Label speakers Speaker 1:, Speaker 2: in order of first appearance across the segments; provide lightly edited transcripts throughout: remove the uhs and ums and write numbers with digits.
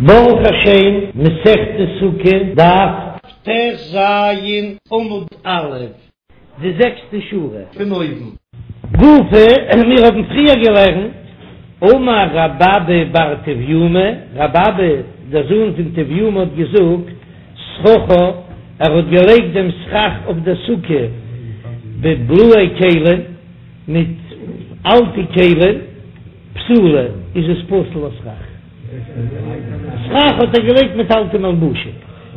Speaker 1: ברוך השם, מסכת סוכה, דף טז עמוד א', די זעקסטע שורה פון אויבן. גופא, מיר האבן פריער געלערנט, אמר רב אבא בר טביומי, רב אבא דער זוהן פון טביומי האט געזאגט, סככה, ער האט געלייגט דעם סכך אויף דער סוכה בבלאי כלים, מיט אלטע כלים, פסולה, איז עס פסול לסכך. סכך האט ער געלייגט מיט אלטע מלבושים.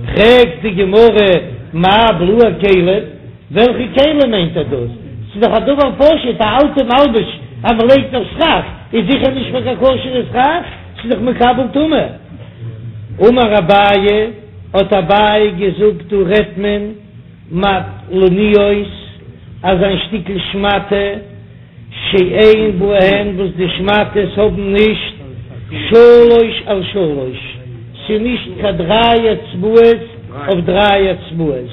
Speaker 1: פרעגט די גמרא, מאי בלאי כלים? וועלכע כלים מיינט ער דאס? ס'איז דאך א דבר פשוט, א אלטע מלבוש אז מען לייגט אויף סכך איז זיכער נישט פאר קיין כשר'ע סכך, ס'איז דאך מקבל טומאה. אמר אביי, האט אביי געזאגט, דא רעדט מען מטלניות, אזא שטיקל שמאטע, שאין בהן וואס די שמאטעס האבן נישט שלוש על שלוש, ס'איז נישט קיין דריי אצבעות אויף דריי אצבעות,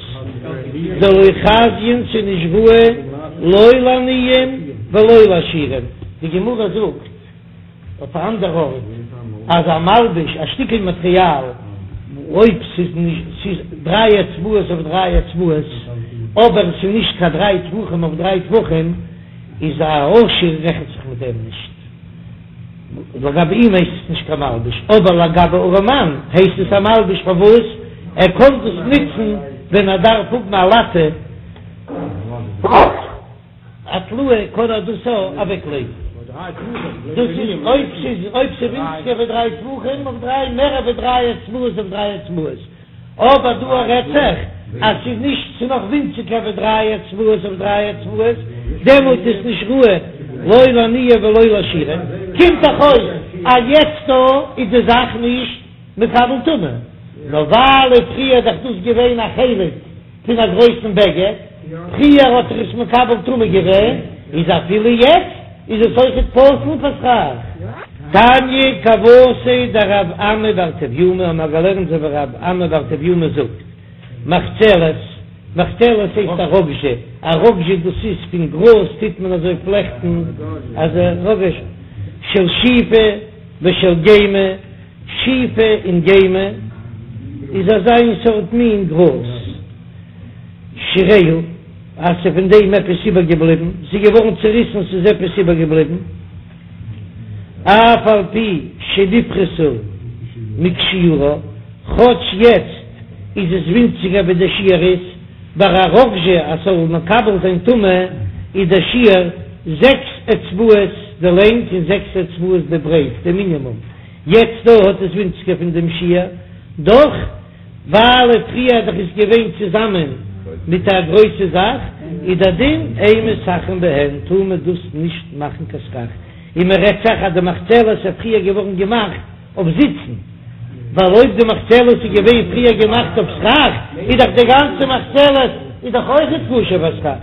Speaker 1: דלא חזיין ס'איז נישט ראוי לא לעניים ולא לעשירים, די גמרא זאגט. אויף א אנדער ארט אז א מלבוש, א שטיקל מאטריאל, אויב ס'איז נישט, ס'איז דריי אצבעות אויף דריי אצבעות, אבער ס'איז נישט קיין דריי טפחים אויף דריי טפחים, איז א עשיר רעכנט זיך מיט דעם נישט. לגבי אים הייסט עס נישט קיין מלבוש, אבער לגבי ארעמאן הייסט עס א מלבוש, פארוואס? ער קען דאס נוצן ווען ער דארף האבן א לאטע. א טלאה קען ער דאס אוועק לייגן. דאס איז אויב ס'איז אויב ס'איז ווינציגער ווי דריי טפחים אויף דריי מער ווי דריי אצבעות אויף דריי אצבעות. אבער דא רעדט זיך אז ס'איז נישט ס'איז נאך ווינציגער ווי דריי אצבעות אויף דריי אצבעות דעמאלט איז נישט ראוי לא לעניים ולא לעשירים. קומט דאך אויס אז יעצט דא איז די זאך נישט מקבל טומאה נאר ווייל פריער איז דאך דאס געווען א חלק פון א גרויסן בגד, פריער האט זיך עס מקבל טומאה געווען, איז אפילו יעצט איז עס אויכעט פסול פאר סכך. תניא כוותיה דרב אמי בר טביומי האבן מיר געלערנט אזוי ווי רב אמי בר טביומי זאגט, מחצלת, מחצלת הייסט א ראגזשע, א ראגזשע דאס איז פון גראז טוט מען אזוי פלעכטן אזא ראגזשע של שיפה ושל גמא, שיפה און גמא איז אזא איין סארט מין גראז, שיריה, אז ס'איז פון דעם עפעס איבערגעבליבן, ס'איז געווארן צעריסן, ס'איז עפעס איבערגעבליבן, אף על פי שנפחתה מכשיעורה, כאטש יעצט איז עס ווינציגער ווי דער שיעור איז, ביי א ראגזשע אז ס'זאל מקבל זיין טומאה איז דער שיעור זעקס אצבעות די לענג און זעקס אצבעות די ברייט, די מינימום. יעצט דא האט עס ווינציגער פון דעם שיעור, דאך ווייל פריער דאך איז געווען צוזאמען מיט א גרויסע זאך, איז דער דין אין מסככין בהן טאר מען דאס נישט מאכן קיין סכך, און מען רעדט זיך אז די מחצלת איז פריער געווארן געמאכט אויף זיצן, ווייל אויב די מחצלת איז געווען פריער געמאכט אויף סכך איז דאך די גאנצע מחצלת איז דאך אויכעט כשר פאר סכך,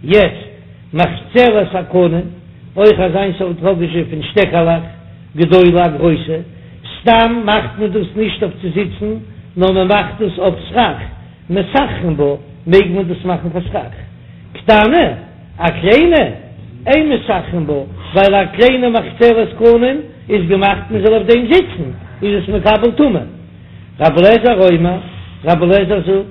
Speaker 1: יעצט מחצלת הקנים, אויך אזא איין סארט ראגאזשע פון שטעקעלעך, גדולה א גרויסע, סתם מאכט מען דאס נישט אויף צו זיצן, נאר מען מאכט דאס אויף סכך, מסככין בה, מעג מען דאס מאכן פאר סכך. קטנה, א קליינע, אין מסככין בה, ווייל א קליינע מחצלת קנים איז געמאכט מען זאל אויף דעם זיצן, איז עס מקבל טומאה. רבי אליעזר אומר, רבי אליעזר זאגט,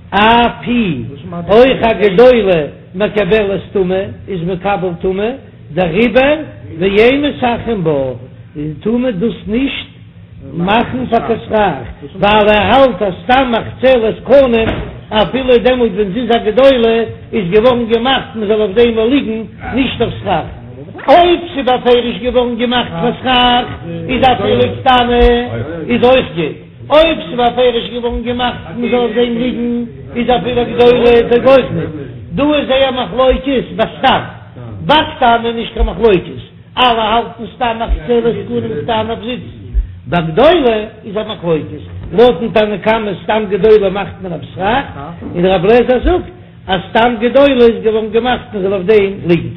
Speaker 1: אף היא, אויך א גדולה מקבלת טומאה איז מקבל טומאה, דעריבער ואין מסככין בה, טאר מען דאס נישט מאכן פאר קיין סכך, ווייל ער האלט אז סתם מחצלת קנים אפילו דעמאלט ווען זי איז א גדולה איז געווארן געמאכט מען זאל אויף דעם ליגן, נישט אויף סכך. אויב ס'איז בפירוש געווארן געמאכט פאר סכך איז אפילו קטנה איז אויך גוט. אויב ס'איז בפירוש געווארן געמאכט מען זאל אויף דעם ליגן, איז אפילו גדולה טויג אויך ניט. דא איז זייער מחלוקת בסתם, בקטנה איז נישט קיין מחלוקת, אלע האלטן סתם מחצלת קנים קטנה אויף זיצן, בגדולה איז א מחלוקת, לויטן תנא קמא סתם גדולה מאכט מען אויף סכך, און רבי אליעזר זאגט אז סתם גדולה איז געווארן געמאכט מען זאל אויף דעם ליגן.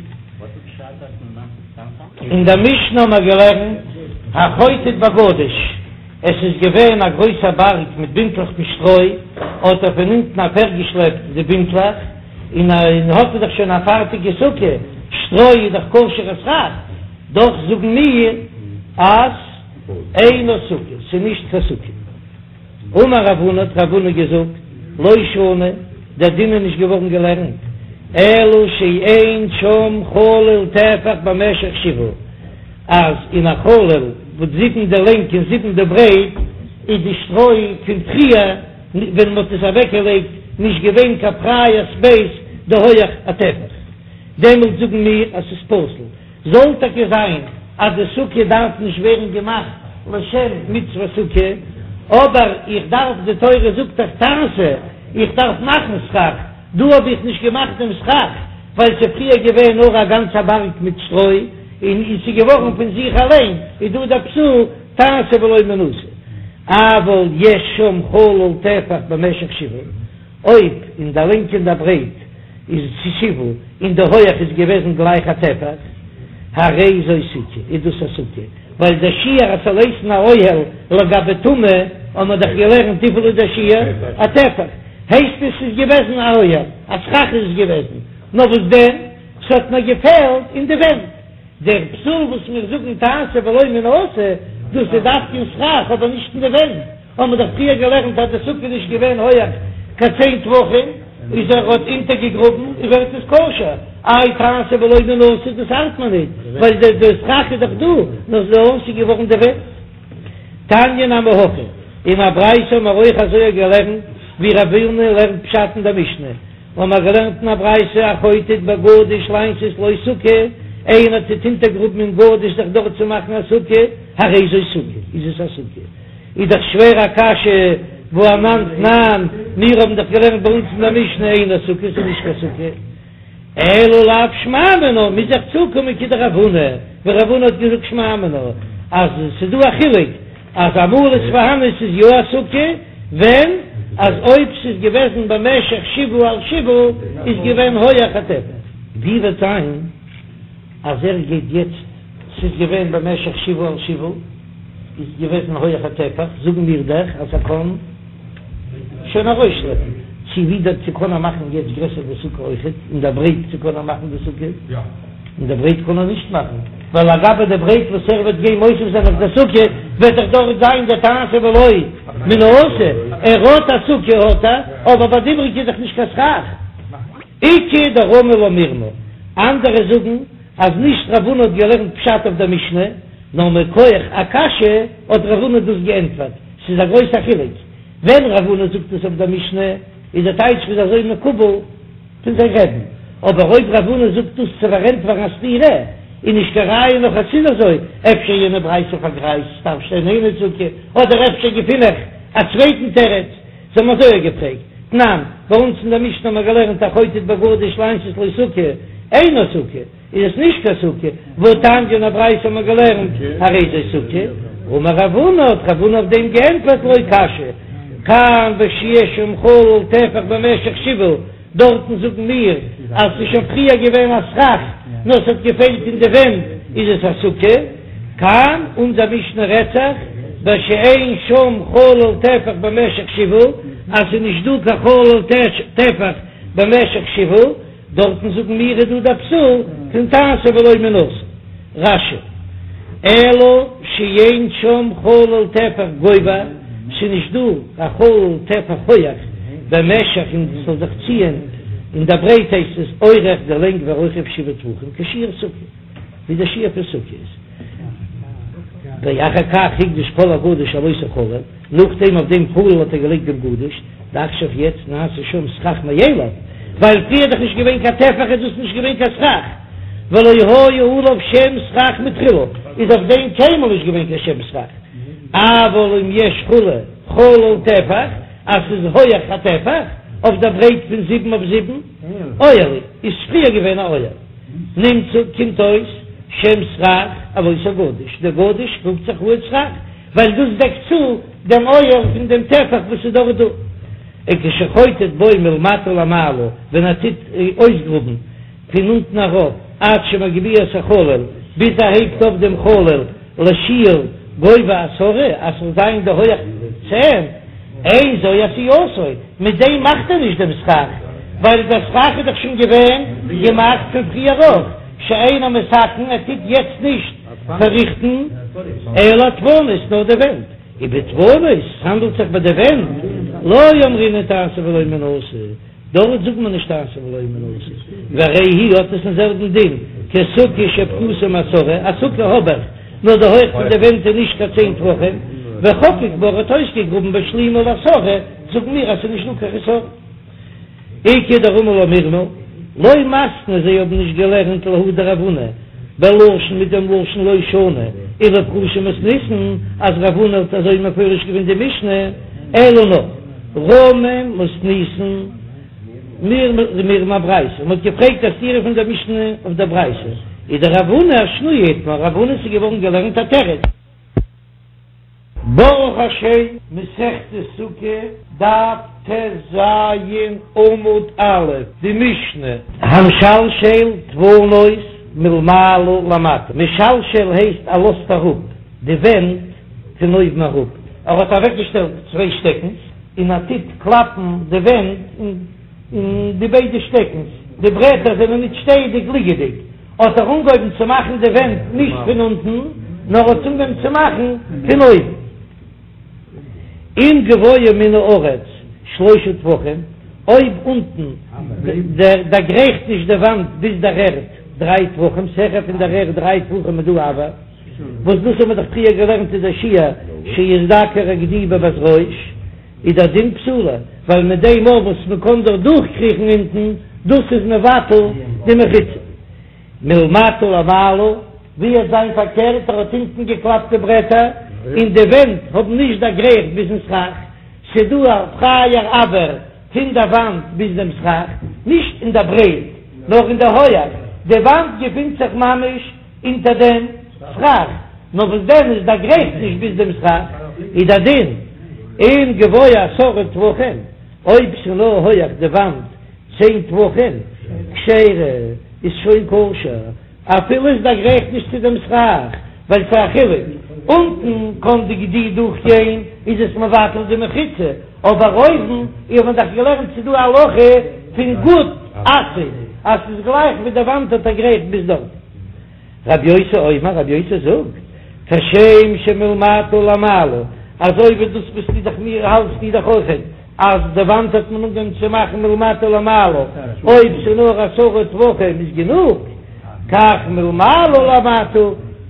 Speaker 1: אין דער משנה האבן מיר געלערנט החוטט בגדיש. עס איז געווען א גרויסער בארג מיט בינטלעך פון שטרוי, האט ער פון אונטן אפירגעשלעפט די בינטלעך, און האט ער דאך שוין א פארטיגע סוכה, שטרוי איז דאך כשר'ע סכך, דאך זאגן מיר אז. אינה סוכה, ס'איז נישט קיין סוכה. אמר רב הונא, האט רב הונא געזאגט, לא שנו, דער דין איז נישט געווארן געלערנט, אלא שאין שם חלל טפח במשך שבעה, אז אין א חלל וואס זיבן די לענג און זיבן די ברייט, איז די שטרוי פון פריער ווען מ'האט עס אוועקגעלייגט נישט געווען קיין פרייע ספעיס די הויעך א טפח, דעמאלט זאגן מיר אז ס'איז פסול. זאל טאקע זיין אז די סוכה דארף נישט ווערן געמאכט לשם מצוות סוכה, אבער איך דארף, די תורה זאגט דאך תעשה, איך דארף מאכן סכך, דא האב איך נישט געמאכט דעם סכך ווייל ס'איז פריער געווען נאר א גאנצע בארג מיט שטרוי און ס'איז געווארן פון זיך אליין, איז דא דער פסול תעשה ולא מן העשוי. אבל יש שם חלל טפח במשך שבעה, אויב אין די לענג און די ברייט איז שבעה און די הויעך איז געוועזן גלייך א טפח, הרי זו סוכה, איז דאס א סוכה, ווייל דער שיעור אז ס'זאל הייסן א אוהל לגבי טומאה האט מען דאך געלערנט וויפיל איז דער שיעור? א טפח, הייסט עס ס'איז געוועזן א אוהל, א סכך איז עס געוועזן, נאר וואס דען ס'האט נאר געפעלט אין די ווענט, דער פסול וואס מיר זאגן תעשה ולא מן העשוי, דאס איז דווקא אין סכך אבער נישט אין די ווענט, האבן מיר דאך פריער געלערנט אז די סוכה איז נישט געווען הויעך קיין צען טפחים, איז ער האט אונטערגעגראבן און ווערט עס כשר, איי תעשה ולא מן העשוי דאס ארט מיר ניט, ווייל די די סכך איז דאך דא, נאר ס'איז עשוי געווארן די ווענט. תניא נמי הכי, אין א ברייתא האבן מיר אויך אזוי געלערנט ווי רב הונא לערנט פשט אין דער משנה, האבן מיר געלערנט אין א ברייתא החוטט בגדיש לעשות לו סוכה, איינער טוט אונטערגראבן אין גדיש זיך דארט צו מאכן א סוכה, הרי זו סוכה, איז עס א סוכה. איז דאך שווער א קשיא, והא אנן תנן, מיר האבן דאך געלערנט ביי אונז אין דער משנה אינה סוכה, ס'איז נישט קיין סוכה. אלא לאו שמע מינה, מוז איך צוקומען כדרב הונא, ווי רב הונא האט געזאגט שמע מינה, אז ס'איז דא א חילוק, אז אמאל איז פארהאן ס'איז יא א סוכה, ווען אז אויב ס'איז געוועזן במשך שבעה על שבעה איז געווען הויעך א טפח. ווי וועט זיין אז ער גייט יעצט ס'איז געווען במשך שבעה על שבעה איז געוועזן הויעך א טפח, זאגן מיר דאך אז ער קען שוין ארויסשלעפן, צו ווידער צו קען ער מאכן יעצט גרעסער די סוכה אויכעט, אין דער ברייט צו קען ער מאכן די סוכה? אין דער ברייט קען ער נישט מאכן, ווייל לגבי די ברייט וואס ער וועט גיין מוסיף זיין אויף דער סוכה, וועט דאך דארט זיין דער תעשה ולא מן העשוי, ער האט א סוכה האט ער, אבער ביי די איבריגע איז דאך נישט קיין סכך. איכא דרמי לה מירמא, אנדערע זאגן אז נישט רב הונא האט געלערנט פשט אויף דער משנה, נאר מכח א קשיא האט רב הונא דאס געענטפערט, ס'איז א גרויסע חילוק, ווען רב הונא זאגט עס אויף דער משנה איז דער טייטש ס'איז אזוי מקובל פון זיין רבי'ן, אבער אויב רב הונא זאגט דאס צו פארענטפערן א סתירה, איז נישט קיין ראיה נאך אז ס'איז אזוי, אפשר יענע ברייתא פארגרייזט ס'דארף שטיין אינה סוכה, אדער אפשר געפין איך א צווייטן תירוץ, זיי האבן אזוי געפרעגט, תנן, ביי אונז אין דער משנה האבן מיר געלערנט החוטט בגדיש לעשות לו סוכה, אינה סוכה, איז עס נישט קיין סוכה, והתניא אין א ברייתא האבן מיר געלערנט הרי זו סוכה, אמר רב הונא האט רב הונא אויף דעם געענטפערט לא קשיא, כאן בשיש שם חלל טפח במשך שבעה, דארטן זאגן מיר אז ס'איז שוין פריער געווען א סכך נאר ס'האט געפעלט אין די ווענט איז עס א סוכה, כאן אונזער משנה רעדט זיך בשאין שם חלל טפח במשך שבעה אז ס'איז נישט דא קיין חלל טפח במשך שבעה, דארטן זאגן מיר איז דא דער פסול פון תעשה ולא מן העשוי. רש"י, אלא שאין שם חלל טפח גובה, ס'איז נישט דא א חלל טפח הויעך במשך און ס'זאל זיך ציען אין דער ברייט הייסט עס אורך די לענג ורוחב שבעה טפחים כשיעור סוכה ווי דער שיעור פון סוכה איז ואחר כך הקדיש כל הגדיש על אותו חלל, נאכדעם אויף דעם חלל האט ער געלייגט דעם גדיש. דעכשיו יעצט נעשה שם סכך מאליו, ווייל פריער איז דאך נישט געווען קיין טפח איז דאס נישט געווען קיין סכך, ולא היה עליו שם סכך מתחילה, איז אויף דעם קיינמאל נישט געווען קיין שם סכך, אבל אם יש כו' חלל טפח, אז ס'איז הויעך א טפח, אויף דער ברייט פון זיבן אויף זיבן, אוהל הוא, איז פריער געווען א אוהל. נמצא, קומט אויס, שם סכך על אותו גדיש, דער גדיש רופט זיך אן סכך, ווייל דאס דעקט צו דעם אוהל פון דעם טפח וואס איז דארט דא. וכשחוטט בו מלמטה למעלה, ווען ער טוט אויסגראבן פון אונטן ארויף, עד שמגביה את החלל, ביז ער הייבט אויף דעם חלל לשיעור גובה עשרה, אז ס'זאל זיין די הויעך צען, אין זו עשייתו, מיט דעם מאכט ער נישט דעם סכך, ווייל דער סכך איז דאך שוין געווען געמאכט פון פריער אויך, שאינו מתקן, ער טוט יעצט נישט פארריכטן. אלא הדפנות, נאר די ווענט, ובדפנות, ס'האנדלט זיך ביי די ווענט, לא אמרינן תעשה ולא מן העשוי, דארט זאגט מען נישט תעשה ולא מן העשוי, והרי היא האט עס דעם זעלבן דין כסוכה שפחותה מעשרה, א סוכה האב איך, נאר די הויך פון די ווענט איז נישט קיין צען טפחים, וחקק בה האט אויסגעגראבן והשלימה לעשרה, זאגן מיר אז ס'איז נישט דא קיין חסרון. איכא דרמי לה מרמא, לא מתנו זיי האבן נישט געלערנט להא דרב הונא בלשון מיט דעם לשון לא שנו אלא לפרושי מתניתין אז רב הונא האט אזוי מפרש געווען די משנה אלא נאר רמי מתניתין מרמא אברייתא מען האט געפרעגט א סתירה פון דער משנה אויף דער ברייתא איז דרב הונא אשנויי איתמר רב הונא ס'איז געווארן געלערנט א תירוץ. ברוך השם, מסכת סוכה, דף טז עמוד א', די משנה. המשלשל דפנות מלמעלה למטה, משלשל הייסט ער לאזט אראפ די ווענט פון אויבן אראפ, ער האט אוועקגעשטעלט צוויי שטעקנס און ער טוט קלאפן די ווענט אין די ביידע שטעקנס, די ברעטער זענען ניט שטייעדיג ליגעדיג. האט ער אנגעהויבן צו מאכן די ווענט נישט פון אונטן, נאר האט אנגעהויבן צו מאכן פון אויבן. אם גבוה מן הארץ שלושה טפחים, אויב אונטן דערגרייכט נישט די וואנט ביז דער ערד דריי טפחים, ס'העכער פון דער ערד דריי טפחים איז דא אויר, וואס דאס האבן מיר דאך פריער געלערנט איז דער שיעור שיזדקר הגדי בבת ראש. איז דער דין פסולה, ווייל מיט דעם מאל וואס מען קען דאך דורכקריכן אונטן, דאס איז מבטל די מחיצה. מלמטה למעלה, ווי וועט זיין פארקערט, ער האט אונטן געקלאפט די ברעטער, און די ווענט האבן נישט דערגרייכט ביזן סכך, ס'דא א פרייער אויר פון דער וואנט ביז דעם סכך, נישט אין דער ברייט, נאר אין דער הויעך, די וואנט געפינט זיך ממש אונטער דעם סכך, נאר וואס דען עס דערגרייכט נישט ביז דעם סכך, איז דער דין אם גבוה עשרה טפחים, אויב ס'איז נאר הויעך די וואנט צען טפחים, כשרה, איז שוין כשר, אפילו עס דערגרייכט נישט צו דעם סכך, ווייל ס'איז א חילוק, אונטן קען די גדי דורכגיין איז עס מבטל די מחיצה, אבער אויבן, איר האט דאך געלערנט ס'איז דא א הלכה פון גוד אסיק אז ס'איז גלייך ווי די וואנט האט דערגרייכט ביז דארט. רבי יוסי אומר, רבי יוסי זאגט, כשם שמלמטה למעלה, אזוי ווי דאס ביסטו דאך מיר האלטסטו דאך אויכעט אז די וואנט האט מען אנגעהויבן צו מאכן מלמטה למעלה, אויב ס'איז נאר עשרה טפחים איז גענוג, כך מלמעלה למטה,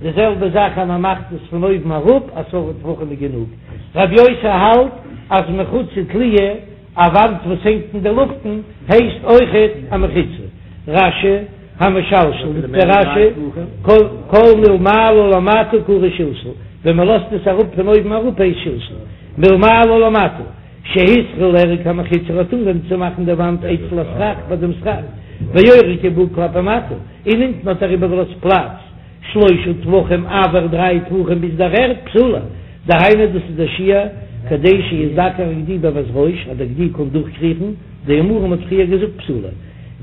Speaker 1: די זעלבע זאך אז מ'מאכט עס פון אויבן אראפ עשרה טפחים איז גענוג. רבי יוסי האלט אז מחיצה תלויה, א וואנט וואס הענגט אין די לופטן, הייסט אויכעט א מחיצה. רש"י, המשלשל, זאגט דער רש"י, כל מלמעלה למטה קרוי שלשול, ווען מען לאזט עס אראפ פון אויבן אראפ הייסט שלשול, מלמעלה למטה, שהתחיל לארוג המחיצה האט אנגעהויבן צו מאכן די וואנט אצל הסכך ביי דעם סכך, ואורקה בה כלפי מטה, און אונטן האט ער איבערגעלאזט פלאץ. שלושה טפחים אויר דריי טפחים ביז דער ערד פסולה, דהיינו דאס איז דער שיעור כדי שיזדקר הגדי בבת ראש אז דער גדי קען דורכקריכן, דאמרן מ'האט פריער געזאגט פסולה,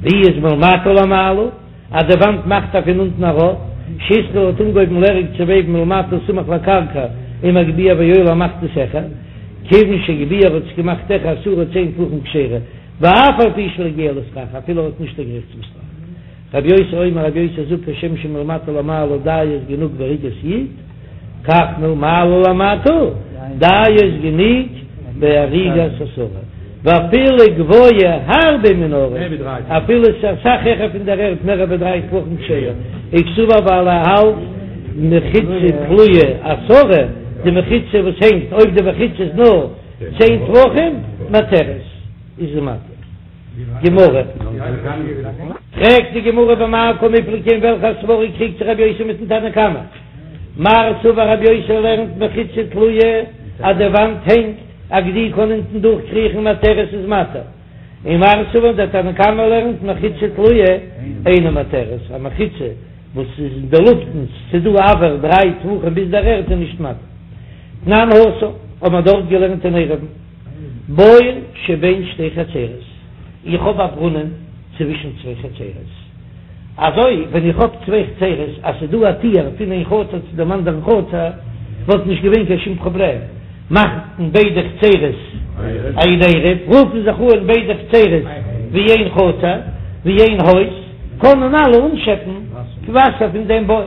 Speaker 1: ווי איז מלמטה למעלה אז די וואנט מאכט ער פון אונטן ארויף, שהתחיל האט אנגעהויבן לארוג צו וועבן מלמטה סמוך לקרקע ומגביה ועולה מאכט עס העכער, כיוון שהגביה האט עס געמאכט העכער עשרה צען טפחים כשרה, ואף על פי שלא הגיע לסכך אפילו ער האט נישט דערגרייכט צום סכך. רבי יוסי אומר רבי יוסי זאגט כשם שמלמטה למעלה דיו איז גענוג באריגת יד, כך מלמעלה למטה דיו איז גענוג באריגת עשרה, ואפילו גבוה הרבה מן הארץ, אפילו עס איז אסאך העכער פון דער ערד מער ווי דריי טפחים כשרה, וקסבר ווייל ער האלט מחיצה תלויה עשרה, די מחיצה וואס הענגט אויב די מחיצה איז נאר צען טפחים מתרת איז זי מתיר. גמרא. פרעגט די גמרא במאי קמיפלגי אין וועלכע סברא קריגט זיך רבי יוסי מיטן תנא קמא? מר סבר רבי יוסי לערנט מחיצה תלויה אז די וואנט הענגט א גדי קען אונטן דורך קריכן מתרת איז מתיר, און מר סבר דער תנא קמא לערנט מחיצה תלויה אינה מתרת א מחיצה וואס איז אין די לופטן ס'דא אויר דריי טפחים ביז דער ערד איז נישט מתיר. תנן התם האט מען דארט געלערנט אין עירובין. בור שבין שתי חצרות, איך האב א ברונען צווישן צוויי חצרות, אזוי ווען איך האב צוויי חצרות אז ס'איז דא א טיר פון איין חצר צו דעם אנדערן חצר וואלט נישט געווען קיין שום פראבלעם, מאכן ביידע חצרות איין עירוב, רופן זיך אן ביידע חצרות ווי איין חצר, ווי איין הויז, קענען אלע אנשעפן וואסער פון דעם בור.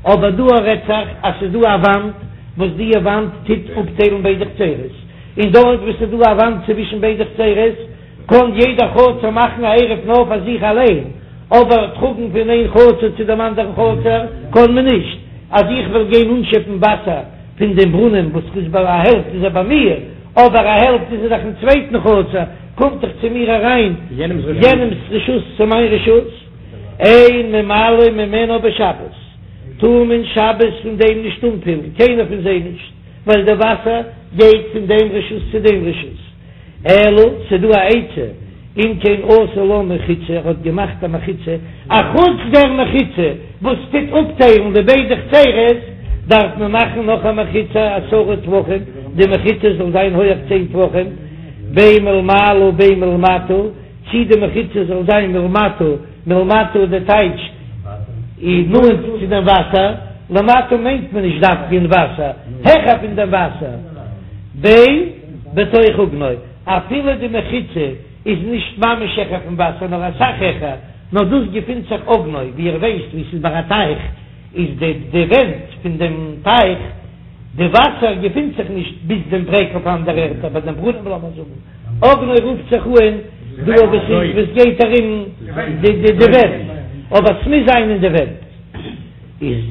Speaker 1: אבער דא רעדט זיך אז ס'איז דא א וואנט וואס די וואנט טוט אפטיילן ביידע חצרות, און דארט וואו ס'איז דא א וואנט צווישן ביידע חצרות קען יעדע חצר מאכן א עירוב נאר פאר זיך אליין, אבער טראגן פון איין חצר צו דעם אנדערן חצר קען מען נישט. אז איך וועל גיין אנשעפן וואסער פון דעם ברונעם וואס איז ביי א העלפט איז ער ביי מיר, אבער א העלפט איז ער דאך אין צווייטן חצר, קומט דאך צו מיר אריין יענעמס רשות צו מיין רשות. אין ממלאין ממנה בשבת, טאר מען שבת פון דעם נישט אנפילן, קיינער פון זיי נישט, ווייל די וואסער גייט פון דעם רשות צו דעם רשות. אלא ס'דא א עצה, אם כן עשה לה מחיצה, ער האט געמאכט א מחיצה, אחוץ דער מחיצה וואס טוט אפטיילן די ביידע חצרות, דארף מען מאכן נאך א מחיצה עשרה טפחים, די מחיצה זאל זיין הויעך צען טפחים, בין מלמעלה בין מלמטה, צי די מחיצה זאל זיין מלמטה, מלמטה איז די טייטש איז נאנט צו דעם וואסער, למטה מיינט מען נישט דווקא אין וואסער, העכער פון דעם וואסער, בין בתוך אוגנו, אפילו די מחיצה איז נישט ממש העכער פון וואסער נאר אסאך העכער, נאר דאס געפינט זיך אוגנו, ווי איר ווייסט ווי ס'איז ביי א טייך איז די די ווענט פון דעם טייך, די וואסער געפינט זיך נישט ביז דעם ברעג אויף אנדערע ערטער ביי דעם ברונעם לאמיר זאגן אוגנו רופט זיך אן דא וואס איז וואס גייט ארום די די די ווענט, אבער ס'מוז זיין אין די ווענט איז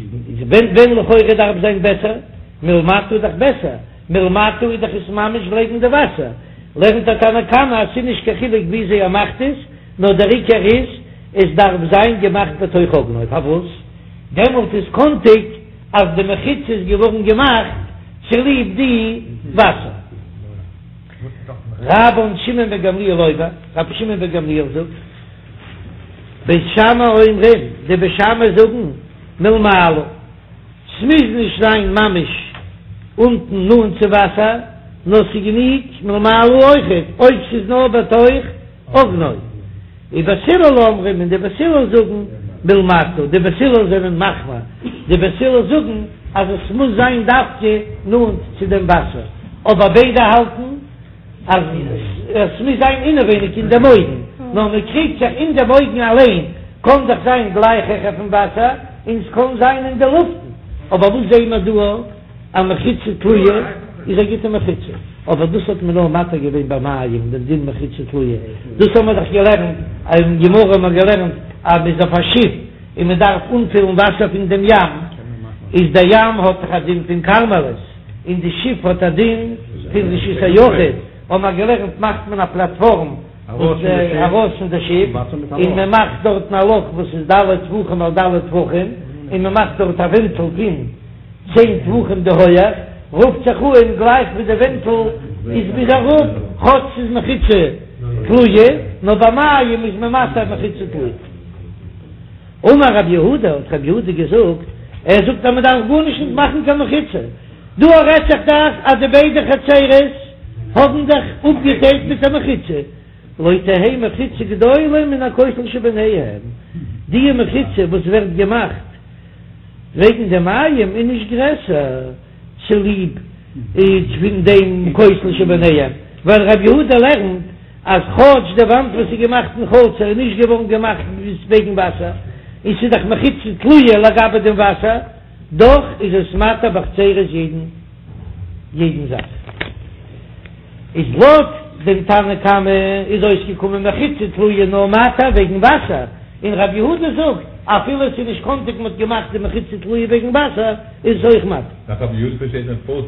Speaker 1: ווען ווען לכאורה דארף זיין בעסער מלמטה איז דאך בעסער. מלמטה איז דאך עס ממש לעבן די וואסער, לערנט דער תנא קמא אז ס'איז נישט קיין חילוק וויאזוי ער מאכט עס, נאר דער עיקר איז עס דארף זיין געמאכט בתוך אוגנו, פארוואס? דעמאלט איז קאנטיג אז די מחיצה איז געווארן געמאכט צוליב די וואסער. רבן שמעון בן גמליאל אומר, רבי שמעון בן גמליאל זאגט, בית שמאי אומרים, די בית שמאי זאגן מלמעלה. ס'מוז נישט זיין ממש אונטן נאנט צו וואסער, נאר ס'גענוג מלמעלה אויכעט אויב ס'איז נאר בתוך אוגנו. ובית הלל אומרים און די בית הלל זאגן מלמטה, די בית הלל זענען מחמיר, די בית הלל זאגן אז עס מוז זיין דווקא נאנט צו דעם וואסער, אבער ביידע האלטן אז עס מוז זיין אינעווייניג אין דעם אויגן, נאר מען קריגט זיך אין דעם אויגן אליין, קען דאך זיין גלייך העכער פון וואסער, און עס קען זיין אין די לופטן, אבער וואס זעען מיר דא א מחיצה תלויה איז א גוטע מחיצה, אבער דאס האט מען נאר מתיר געווען ביי מים דעם דין מחיצה תלויה, דאס האבן מיר דאך געלערנט, אין גמרא האבן מיר געלערנט אז מען איז אויף א שיף און מען דארף אנפילן וואסער פון דעם ים, איז דער ים האט דאך א דין פון כרמלית, און די שיף האט א דין פון רשות היחיד, האבן מיר געלערנט מאכט מען א פלאטפארם וואס ארויס פון די שיף, און מען מאכט דארטן א לאך וואס איז ד' טפחים על ד' טפחים, און מען מאכט דארט א ווענטל פון צען טפחים די הויעך, רופט זיך אן גלייך ווי די ווענטל איז ביז אראפ, כאטש ס'איז מחיצה תלויה, נאר ביי מים איז מען מתיר מחיצה תלויה. אמר רב יהודה, האט רב יהודה געזאגט, ער זאגט אז מען דארף גארנישט נישט מאכן קיין מחיצה, דא רעדט זיך דאך אז די ביידע חצרות האבן זיך אפגעטיילט מיט א מחיצה, לא תהא מחיצה גדולה מן הכותל שביניהם, די מחיצה וואס ווערט געמאכט וועגן די מים איז נישט גרעסער צוליב פון דעם כותל שביניהם, ווייל רב יהודה לערנט אז כאטש די וואנט וואס איז געמאכט אין חצר איז נישט געווארן געמאכט וועגן וואסער, און ס'איז דאך מחיצה תלויה לגבי דעם וואסער, דאך איז עס מתיר בחצרות יעדן יעדן זאך. איז לויט דעם תנא קמא איז אויסגעקומען מחיצה תלויה נאר מתיר וועגן וואסער, און רבי יהודה זאגט אפילו עס איז נישט קאנטיג מ'האט געמאכט די מחיצה תלויה וועגן וואסער איז עס אויך מתיר.
Speaker 2: נאך רבי יהודה פארשטייט מען פארט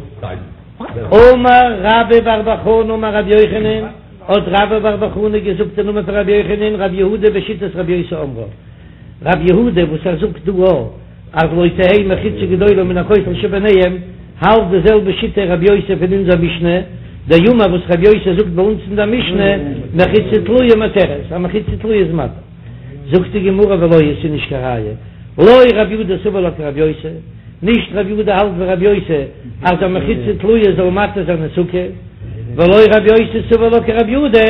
Speaker 1: אמר רבה בר בר חנה אמר רבי יוחנן, האט רבה בר בר חנה געזאגט אין נאמען פון רבי יוחנן, רבי יהודה בשיטת רבי יוסי אומרה, רבי יהודה וואס ער זאגט דא אז לא תהא מחיצה גדולה מן הכותל שביניהם, האלט די זעלבע שיטה רבי יוסי פון אונזער משנה, דאמר וואס רבי יוסי זאגט ביי אונז אין דער משנה, מחיצה תלויה מתירת, א מחיצה תלויה איז מתיר. זאגט די גמרא ולא היא, ס'איז נישט קיין ראיה, לא רבי יהודה סבר לה כרבי יוסי, נישט רבי יהודה האלט ווי רבי יוסי אז א מחיצה תלויה זאל מתיר זיין אין סוכה, ולא רבי יוסי סבר לה כרבי יהודה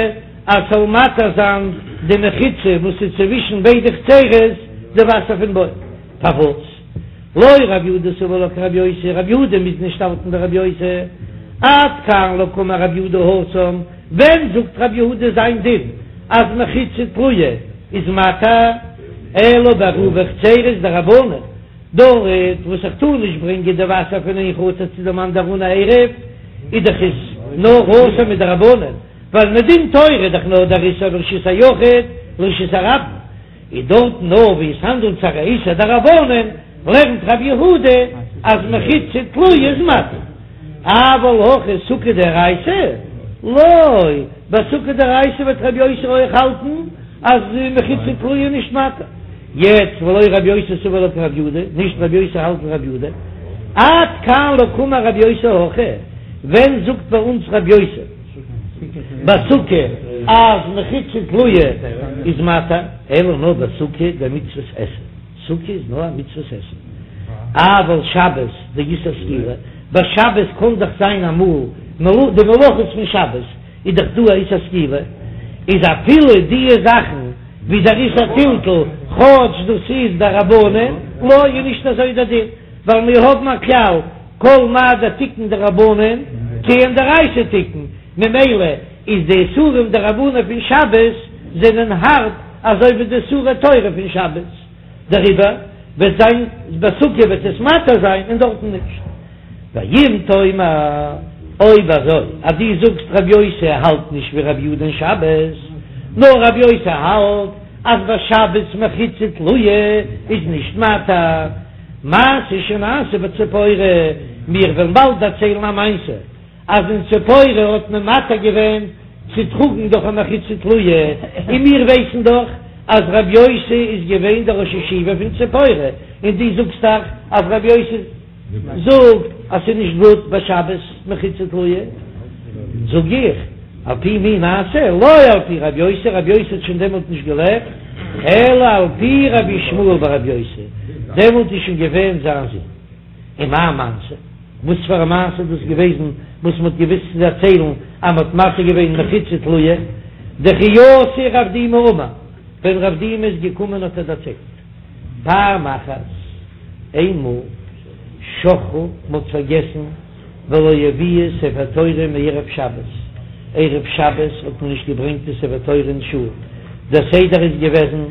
Speaker 1: אז ס'זאל מתיר זיין די מחיצה וואס איז צווישן ביידע חצרות די וואסער פון בור. פארוואס לא רבי יהודה סבר לה כרבי יוסי, רבי יהודה מוז נישט האלטן ווי רבי יוסי, עד כאן לא קאמר רבי יהודה התם, ווען זאגט רבי יהודה זיין דין אז מחיצה תלויה איז מתיר, אלא בעירובי חצרות דרבנן. דארט וואס איך טאר נישט ברענגען די וואסער פון איין חצר צו דעם אנדערן אן א עירוב, איז דאך עס נאר אסור מדרבנן, ווייל מדין תורה איז דאך נאר דער איסור מרשות היחיד לרשות הרבים, איז דארט נאר ווי עס האנדלט זיך א איסור דרבנן, לערנט רב יהודה אז מחיצה תלויה איז מתיר, אבל הכא סוכה דאורייתא לא, ביי סוכה דאורייתא וועט רבי יוסי אויך האלטן אז מחיצה תלויה איז נישט מתיר. יעצט ולא רבי יוסי סבר לה כרבי יהודה, נישט רבי יוסי האלט ווי רבי יהודה, עד כאן לא קאמר רבי יוסי הכא, ווען זאגט ביי אונז רבי יוסי בסוכה אז מחיצה תלויה איז מתיר, אלא נאר בסוכה דמצוות עשה, סוכה איז נאר א מצוות עשה, אבל שבת דאיסור סקילה, ביי שבת קען דאך זיין אמאל די מלאכות פון שבת איז דאך דא א איסור סקילה, איז אפילו דיע זאכן ווי דער איסור טלטול, כאטש דאס איז דרבנן, לא איז נישט אזוי דער דין, ווייל מיר האבן א כלל, כל מה דתיקון דרבנן, כעין דאורייתא תיקון, ממילא איז די איסורים דרבנן פון שבת זענען הארב אזוי ווי די איסורי תורה פון שבת, דעריבער וועט זיין בסוכה וועט עס מתיר זיין און דארטן נישט. ואם תאמר, אויב אזוי אז דו זאגסט רבי יוסי האלט נישט ווי רבי יהודה אין שבת, נאר רבי יוסי האלט אז ביי שבת מחיצה תלויה איז נישט מתיר, מעשה שנעשה בציפורי, מיר וועלן באלד דערציילן א מעשה אז אין ציפורי האט מען מתיר געווען צו טראגן דורך א מחיצה תלויה, און מיר ווייסן דאך אז רבי יוסי איז געווען דער ראש ישיבה פון ציפורי, און דו זאגסט דאך אז רבי יוסי. זאגט אז ס'איז נישט גוט ביי שבת מחיצה תלויה, זאג איך, על פי מי נעשה, לא על פי רבי יוסי, רבי יוסי האט שוין דעמאלט נישט געלעבט, אלא על פי רבי ישמעאל ברבי יוסי, דעמאלט איז שוין געווען זיין זון. ומאי מעשה, וואס פאר א מעשה איז דאס געוועזן וואס מ'האט געוואוסט צו דערציילן אז מ'האט מתיר געווען מחיצה תלויה, דכי אתא רב דימי אמר, ווען רב דימי איז געקומען האט ער דערציילט. פעם אחת, איינמאל, שכחו, מ'האט פארגעסן, ולא הביאו ספר תורה מערב שבת, ערב שבת האט מען נישט געברענגט די ספר תורה אין שול, דער סדר איז געוועזן,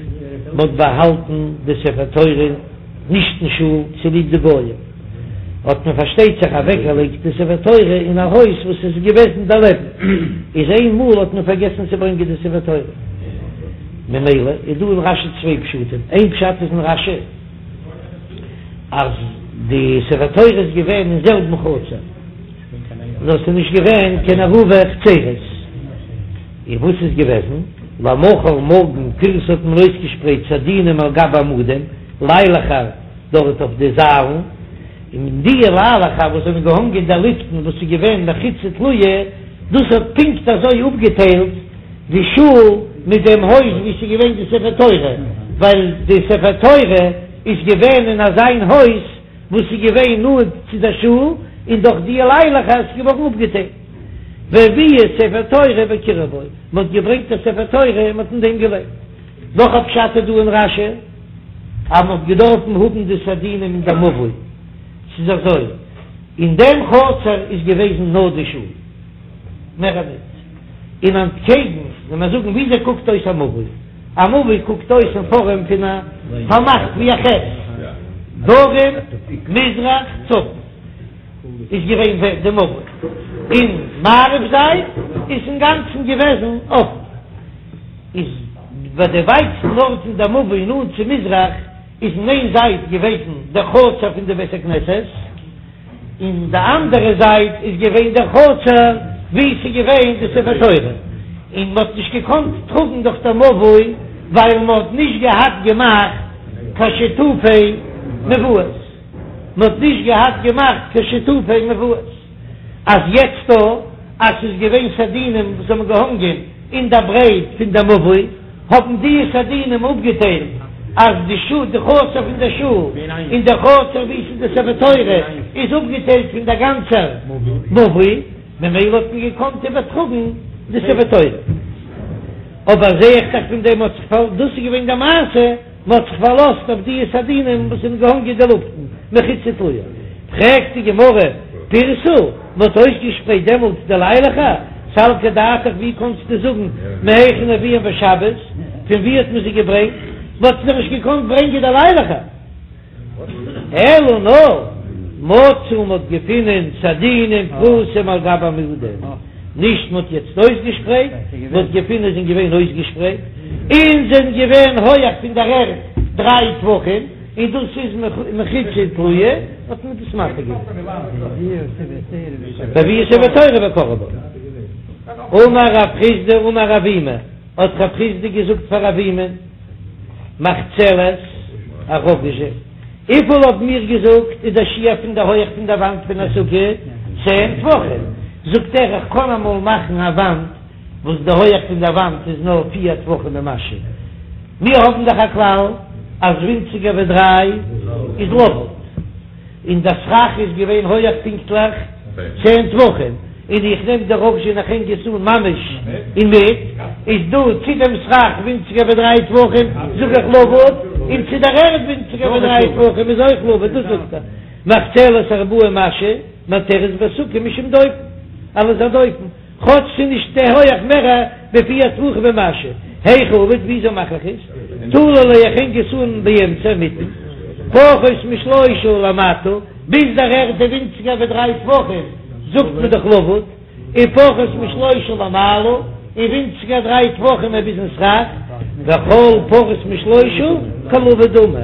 Speaker 1: מ'האט באהאלטן די ספר תורה נישט אין שול צוליב די גויים, האט מען פארשטייט זיך אוועקגעלייגט די ספר תורה אין א הויז וואס איז געוועזן דערלעבן, איז איינמאל האט מען פארגעסן צו ברענגען די ספר תורה. ממילא איז דא אין רשי צוויי פשטים, איין פשט איז אין רשי אז די ספר תורה איז געווען אין זעלבן חצר, נאר ס'איז נישט געווען קיין עירובי חצרות, און וואס איז געוועזן למחר מארגן פירסו האט מען אויסגעשפרייט סדינים על גבי עמודים, ליילעכער דארט אויף די זיילן, און די ליילעכער וואס זענען געהאנגען אין דער לופטן וואס איז געווען מחיצה תלויה, דאס האט פונקט אזוי אפגעטיילט די שול מיט דעם הויז וואו ס'איז געווען די ספר תורה, ווייל די ספר תורה איז געווען אין אזיין הויז וואס איז געווען נאנט צו דער שול, און דורך די ליילעכער איז געווארן אפגעטיילט. והביאו ספר תורה וקראו בו, מען האט געברענגט א ספר תורה און מען האט אין דעם געלייגט. נאך א פשט איז דא אין רש"י, אז מען האט געדארפן האבן די סדינים אין דער מבוי, ס'איז אזוי, אין דעם חצר איז געוועזן נאר די שול, מער ניט. און אנטקעגן, ווען מיר זאגן וויאזוי קוקט אויס א מבוי, א מבוי קוקט אויס אין פארעם פון א פארמאכט ווי א חית, דרום, מזרח, צפון איז געווען די מבוי, און מערב זייט איז אינגאנצן געוועזן אפן, איז ביי די ווייטסטן ארט אין די מבוי נאנט צו מזרח איז אין איין זייט געוועזן דער חצר פון די בית הכנסת, אין די אנדערע זייט איז געווען דער חצר וואו ס'איז געווען די ספר תורה, און מ'האט נישט געקאנט טראגן דורך דער מבוי ווייל מ'האט נישט געהאט געמאכט קיין שיתופי מבואות, מ'האט נישט געהאט געמאכט קיין שיתופי מבואות, אז יעצט דא אז ס'איז געווען סדינים וואס האבן געהאנגען אין דער ברייט פון דער מבוי, האבן די סדינים אפגעטיילט אז די שול, די חצר פון דער שול און דער חצר וואו ס'איז די ספר תורה איז אפגעטיילט פון דער גאנצער מבוי, ממילא האט מען געקאנט איבערטראגן די ספר תורה. אבער זעה איך דאך פון דעם האט זיך פאר, דאס איז געווען די מעשה. מען האט זיך פארלאזט אויף די סדינים וואס זענען געהאנגען אין די לופטן, מחיצה תלויה. פרעגט די גמרא, פירסו, מען האט אויסגעשפרייט דעמאלטס די ליילעכער, סלקא דעתך ווי קאנסטו זאגן מהיכן הביאום בשבת, פון ווי האט מען זיי געברענגט, מען האט זיי נישט געקאנט ברענגען די ליילעכער. אלא נאר מצאו מ'האט געפינען סדינין פרוסים על גבי עמודים, נישט מ'האט יעצט אויסגעשפרייט, מ'האט געפינען זענען געווען אויסגעשפרייט און זענען געווען הויעך פון דער ערד דריי טפחים, און דאס איז מחיצה תלויה, האט מען דאס מתיר געווען. והביאו ספר תורה וקראו בה. אמר רב חסדא אמר אבימי, האט רב חסדא געזאגט פאר אבימי, מחצלת א ראגאזשע, וויפיל האבן מיר געזאגט איז דער שיעור פון די הויעך פון דער וואנט פון א סוכה? צען טפחים. זאגט ער איך קען אמאל מאכן א וואנט וואס די הויעך פון דער וואנט איז נאר פיר טפחים ומשהו. מיר האבן דאך א כלל אז ווינציגער ווי דריי איז לבוד. און דער סכך איז געווען הויעך פונקטליך צען טפחים, און איך נעם די ראגאזשע און איך הענג עס אן ממש אינמיט, איז דא צו דעם סכך ווינציגער ווי דריי טפחים זאג איך לבוד, און צו דער ערד ווינציגער ווי דריי טפחים איז אויך לבוד, דאס זאגט ער מחצלת ארבעה ומשהו מתירת בסוכה משום דופן, אלס א דופן. כאטש ס'איז נישט די הויעך מער ווי פיר טפחים ומשהו, היכי עביד וויאזוי מאך איך עס? תלי ליה איך הענג עס אן באמצע אינמיטן, פחות משלושה למטה, ביז דער ערד איז ווינציגער ווי דריי טפחים, זאגט מען דאך לבוד, און פחות משלושה למעלה, און ווינציגער דריי טפחים איז ביזן סכך, וכל פחות משלושה כלבוד דמי.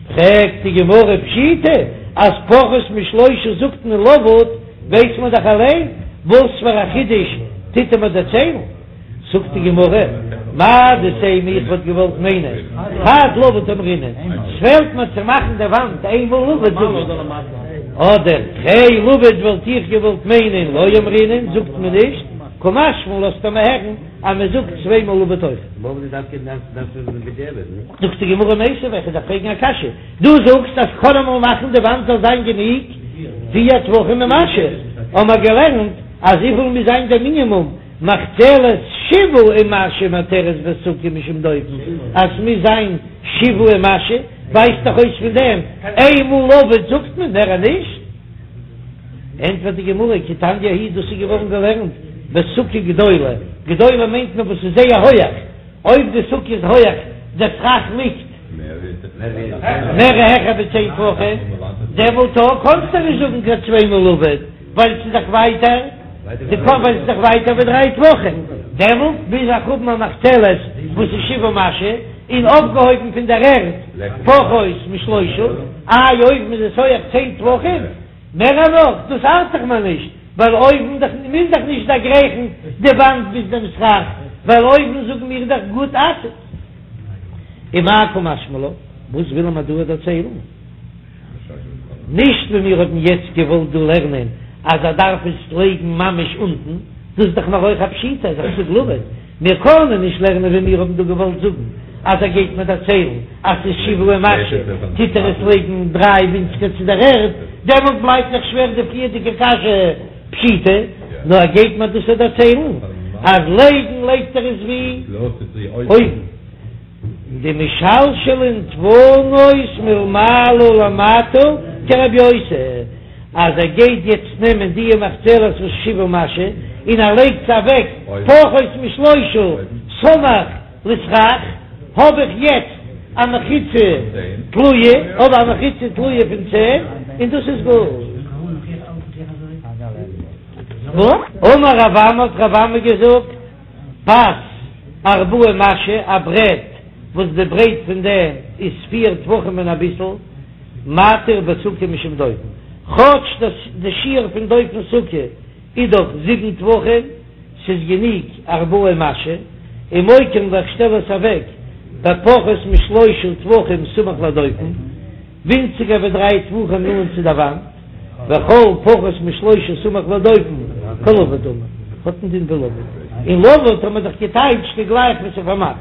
Speaker 1: פרעגט די גמרא פשיטא אז פחות משלושה זאגט מען לבוד, ווייס מען דאך אליין, וואס פאר א חידוש טוט ער מיר דערציילן? זאגט די גמרא, מהו דתימא איך וואלט געוואלט מיינען חד לבוד אמרינן, ס'פעלט מיר צו מאכן די וואנט איין מאל לבוד זאג איך, אדער תרי לבוד וואלט איך געוואלט מיינען לא אמרינן זאגט מען נישט, קא משמע לן לאזט ער מיר הערן אז מען זאגט צוויי מאל לבוד אויך. זאגט די גמרא מיתיבי, איך דארף פרעגן א קשיא, דו זאגסט אז כ'קען אמאל מאכן די וואנט זאל זיין גענוג פיר טפחים ומשהו, האמער געלערנט אז וויפיל מוז זיין דער מינימום, מחצלת שבעה ומשהו מתירת בסוכה משום דופן, אז ס'מוז זיין שבעה ומשהו, ווייזט דאך אויס פון דעם איין מאל לבוד זאגט מען מער נישט. ענטפערט די גמרא, כי תניא ההיא דאס איז געווארן געלערנט בסוכה גדולה, גדולה מיינט מען וואס איז זייער הויעך, אויב די סוכה איז הויעך, דער סכך ליגט מער העכער ווי צען טפחים, דעמאלט קאנסטו נישט זאגן קיין צוויי מאל לבוד, ווייל ס'איז דאך ווייטער, ווייל ס'איז דאך ווייטער ווי דריי טפחים, דעמאלט מוז איך האבן א מחצלת וואס איז שבעה ומשהו, און אויפגעהויבן פון דער ערד פחות משלושה, איי אויבן איז עס הויעך צען טפחים, מער נאך, דאס ארט זיך מיר נישט, ווייל אויבן דאך מוז דאך נישט דערגרייכן די וואנט ביז דעם סכך, ווייל אויבן זאגן מיר דאך גוד אסיק. ומאי קא משמע לן, וואס וויל ער מיר דא דערציילן? נישט ווי מיר האבן יעצט געוואלט דא לערנען אז ער דארף עס לייגן ממש אונטן, דאס איז דאך נאר אויך א פשיטא אז איך זאג לבוד, מיר קענען נישט לערנען ווי מיר האבן דא געוואלט זאגן אז ער גייט מיר דערציילן אז ס'איז שבעה ומשהו, טוט ער עס לייגן דריי ווינציגער צו דער ערד, דעמאלט בלייבט דאך שווער די פריערדיגע קשיא פשיטא, נאר ער גייט מיר דאס דערציילן אז לייגן לייגט ער עס ווי אויבן. דמשלשלין דפנות מלמעלה למטה כרבי יוסי, אז ער גייט יעצט נעמען דיע מחצלת וואס שבעה ומשהו און ער לייגט עס אוועק פחות משלושה סמוך לסכך, האב איך יעצט א מחיצה תלויה, האב א מחיצה תלויה פון צען און דאס איז גוט. אמר רב אמי האט רב אמי געזאגט. פס ארבעה ומשהו, א ברעט וואס די ברייט פון דעם איז פיר טפחים און אביסל, מתיר בסוכה משום דופן, כאטש דאס די שיעור פון דופן סוכה איז דאך זיבן טפחים, ס'איז גענוג ארבעה ומשהו, ומוקים איך שטעל עס אוועק בפחות משלושה טפחים סמוך לדופן. ווינציגער ווי דריי טפחים נאנט צו דער וואנט, וכל פחות משלושה סמוך לדופן כלבוד דמי, האט א דין ווי לבוד, און לבוד האט מען דאך געטייטשט ווי גלייך ווי ס'איז פארמאכט.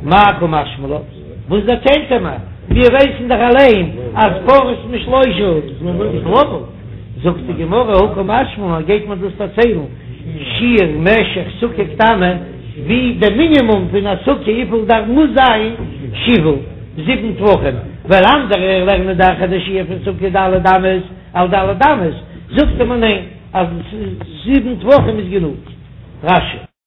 Speaker 1: מאי קא משמע לן? וואס דערציילט ער מיר? מיר ווייסן דאך אליין אז פחות משלושה איז לבוד. זאגט די גמרא הא קא משמע לן, גייט מען דאס דערציילן שיעור משך סוכה קטנה, ווי די מינימום פון א סוכה וויפיל דארף מוז זיין שבעה. זיבן טפחים, ווייל אנדערע לערנען דאך אז די שיעור פון סוכה ד' אמות על ד' אמות, זאגט מען ניין אז זיבן טפחים איז גענוג. רש"י.